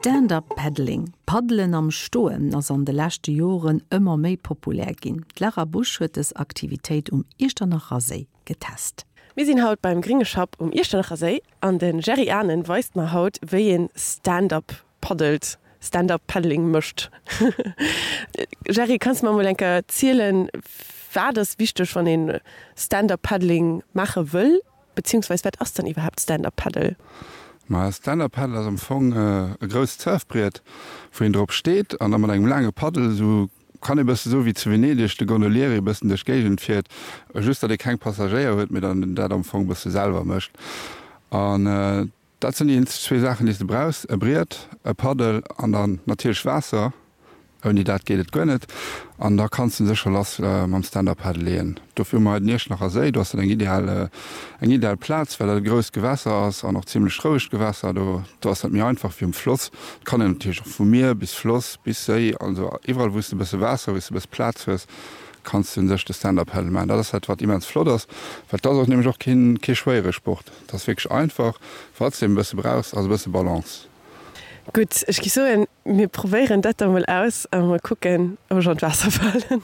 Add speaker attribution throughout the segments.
Speaker 1: Stand-up Paddling, Paddelen am Stoen, ass an de leschte Joren ëmmer méi populär ginn. D'Lara Busch huet dës Aktivitéit um Iechternacher Séi getest.
Speaker 2: Mir sinn haut beim Gringe Schapp um Iechternacher Séi an de Jerry Ahnen weist mer haut wéi een Stand-up paddelt, Stand-up Paddling mécht. Jerry, kanns de mer mol eng Kéier zielen, wat ass wichteg wann een Stand-up Paddling maache wëll, beziehungsweis wat ass dann iwwerhaapt Stand-up Paddle?
Speaker 3: Ma Stand-up Paddle ass am Fong e grousst Surfbriet, wou een drop steet an da mat engem laange Paddel, esou kann ee bësse soe wéi zu Venedeg de Gondolieri e bëssen duerch d'Géigend fiert, just datt ee keng Passagéier huet, mee dann dat am Fong e bësse selwer mécht. An Dat sinn déi eenzeg zwee Saachen, déi s de brauchs, e Briet, e Paddel an dann natierlech Waasser. Ouni dat geet et guer net. An da kanns de sécher lass mam Stand-Up Paddle leeën. Dofir hu mer hei den Iechternacher Séi. Do ass dat eng ideal, eng ideal Plaz, well dat e grousst Gewässer ass an och zimlech rouegt Gewässer. Do, do ass dat méi einfach wéi um Floss. Et kann een natierlech och vum Mier bis Floss bis Séi, also iwwerall wou s de e bësse Waasser, wou s de e bësse Plaz hues, kanns de u sech de Stand-Up Paddle maachen. Dat ass dat, wat immens flott ass, well et ass och nämlech och keen, kee schwéiere Sport. Et ass wierklech einfach. Wat s de e bësse brauchs, ass e bësse Balance.
Speaker 2: Gutt, ech gi soen, mir probéieren dat da mol aus a mol kucken, ob ech an d'Waasser falen.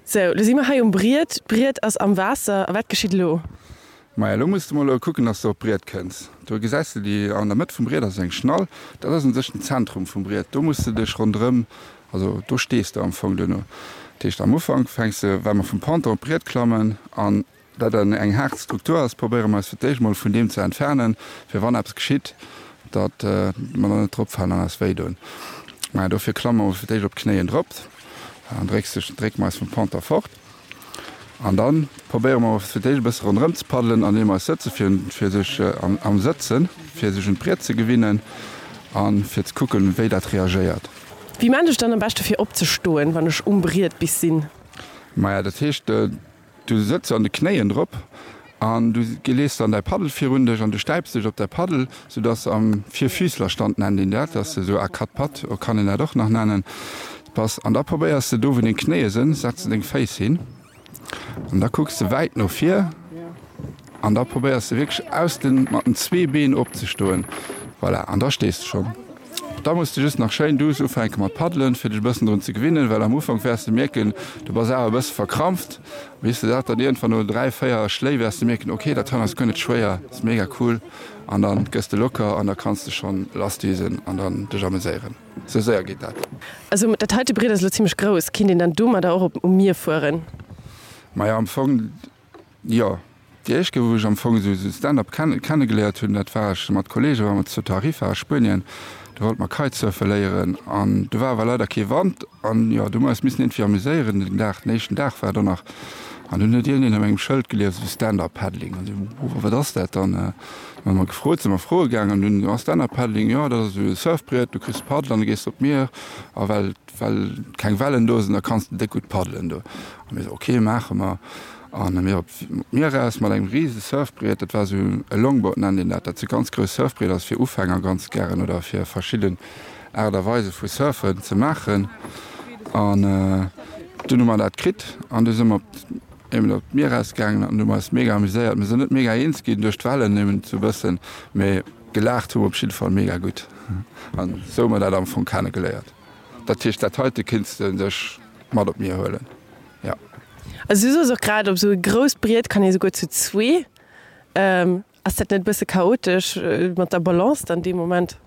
Speaker 2: Sou, lo si mer hei um Briet. D'Briet ass am Waasser. A wat geschitt elo?
Speaker 3: Maja, elo muss de mol kucken, dass de op d'Briet kënns. Do gesäis de déi, an der Mëtt vum Briet ass eng Schnall. Dat ass un sech den Zentrum vum Briet. Do muss de dech ronderëm, also do stees de am Fong duerno. Dat heescht, am Ufank fänks de, well mer vum Ponton op d'Briet klammen an Dat en eng haart Struktur ass, probéiere mer eis fir d'éischt mol vun deem ze entfernen, fir wann eppes geschitt, datt mer dann net dropfalen an eis wéi doen. Maja, dofir klamme mer fir d'éischt op d'Knéien drop an drécks dech, drécke mer eis vum Ponter fort. An da probéiere mer fir d'éischt e bësse ronderëm ze paddelen, andeem mer eis sëtze fir, fir sech am Sëtzen, fir sech un d'Briet ze gewinnen a fir ze kucken, wéi dat reagéiert.
Speaker 2: Wéi maan ech dann am beschte fir opzestoen, wann ech um Briet bis sinn?
Speaker 3: Maja, dat heescht, Du sëtz an de Knéien drop an du lees dann däi Paddel virun dech an du stäips dech op däi Paddel, sou dass am Vierfüßlerstand nennt een dat, dass de sou à quatre pattes, kann een dat och nach nennen, bass. An da probéiers de do wou deng Knéie sënn, setz de deng Féiss hin an da kucks de wäit no vir an da probéiers de wierklech aus den, mat den zwee Been opzestoen. Voilà, an da stees de schonn. Da muss de just nach schéin duuss ufänke mat paddelen, fir dech e bëssen drun ze gewinnen, well am Ufank wäers de mierken, du bass awer e bësse verkrampft. Bis de dat dann iergendwann no 3, 4 Schléi wäers de mierken, ok, dat hei ass guer net schwéier, ass mega cool an dann gëss de locker an da kanns de schonn lassdüsen an dann dech ameséieren. Sou séier geet dat.
Speaker 2: Also dat heite Briet ass elo zimmlech grouss, kinnt een dann domadder och op um Mier fueren?
Speaker 3: Maja am Fong jo. Déi éischt Kéier wou ech am Fong esou Stand-up kennegeléiert hunn, dat war ech mat Kollege war mer zu Tarifa a Spuenien, do wollte mer Kitesurfe léieren an do war awer leider kee Wand an jo, do hu mer eis missen iergendwéi amuséieren den Dag, den éischten Dag war do nach an dunn huet iergendeen op engem Schëld gelies esou Stand-up Paddling an esou, oh wat ass dat dann? Dann hu mer gefrot, si mer froe gaangen an dunn, jo Stand-up Paddling, jo dat ass esou e Surfbriet, du kriss e Paddel an du gees op d'Mier a well well keng Wellen do sinn, da kanns de déck gutt paddelen do. A mir esou, ok, maache mer. An mir op d'Mier eraus mat engem rise Surfbriet, dat war esou e Longboard nennt een dat, dat si ganz grouss Surfbrieder, ass fir Ufänger ganz gären oder fir verschidden Aart a Weise vu Surfen ze maachen. An dunn hu mer dat kritt an du si mer op eben op d'Mier eraus gaangen an hu mer eis mega amuséiert. Mir sinn net mega eens ginn duerch d'Wellen, eben esou e bëssen, mee gelaacht hu mer op jidde Fall mega gutt. An esou hu mer dat am Fong kennegeléiert. Dat heescht, dat heite kinns de dech mat op d'Mier huelen, jo.
Speaker 2: Also du soos och grad, op esou e grousst Briet kann ee souguer zu zwee. Ass dat net e bësse chaotesch mat der Balance dann dee Moment?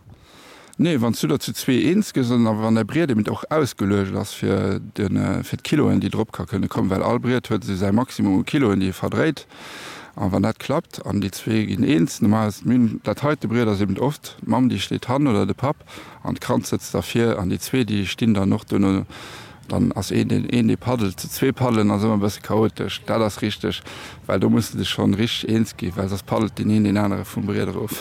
Speaker 3: Nee, wann s du der zu zwee eens gëss an wann däi Briet eben och ausgeluecht ass fir de fir d'Kiloen, déi drop ka kënne kommen, well all Briet huet esou säi Maximum u Kiloen, déi e verdréit. An wann dat klappt an déi zwee ginn eens, normal ass dat heite Briet ass eben oft d'Mamm, déi steet hannen oder de Papp, An d'Kand sëtzt da vir an déi zwee déi stinn dann och duerno. Dann ass een deen een dee paddelt. Zu zwee paddelen ass ëmmer e bësse chaotesch, dat ass richteg, well do muss de dech schonn richteg eens ginn, well soss paddelt deen een deen anere vum Briet erof.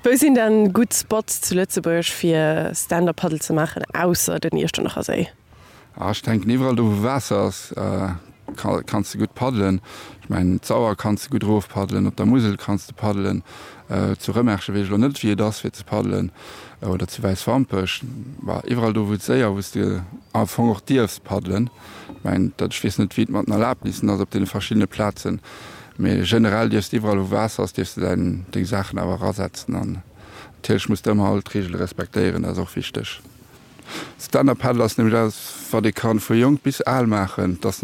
Speaker 2: Wou sinn dann gutt Spots zu Lëtzebuerg fir Stand-up Paddle ze maachen, ausser den Iechternacher Séi?
Speaker 3: Ah, ech denken iwwerall do wou Waasser ass kanns de gutt paddelen. Ech mengen d'Sauer kanns de gutt erof paddelen, op der Musel kanns de paddelen, zu Rëmerschen weess ech elo net wéi et ass fir ze paddelen oder zu Wäiswampech. Bah, iwwerall do wou et séier, wou s de am Fong och dierfs paddelen. Ech mengen dat, ech weess net wéi et mat den Erlabnissen ass op deene verschiddene Plazen, mee generell dierfs de iwwerall wou Waasser ass dierfs de däin deng Saachen awer erasetzen an. Natierlech muss de ëmmer all d'Reegele respektéieren, dat ass och wichteg. Stand-up Paddle ass nämlech eppes, wat ee kann vu jonk bis al maachen. Dat ass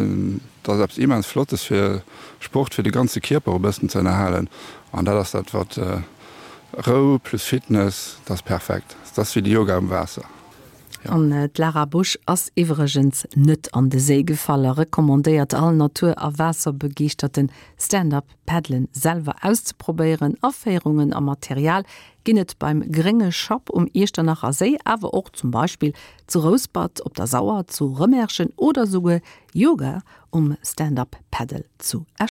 Speaker 3: dat ass eppes immens Flottes fir Sport fir de ganze Kierper e bëssen ze ënnerhalen. An dat ass dat, wat Rou plus Fitness, dat ass perfekt. Dat ass wéi de Yoga um Waasser.
Speaker 1: An d'Lara Busch ass iwwregens net an de Séi gefall a recommandéiert all Natur a Waasserbegeeschterten, Stand-up Paddlen selwer auszeprobéieren. Aféierungen a Material ginn et beim Grénge Schapp um Iechternacher Séi, awer och zum Beispill zu Rouspert, op der Sauer, zu Rëmerschen oder souguer Yoga um Stand-up Paddle zu Esch.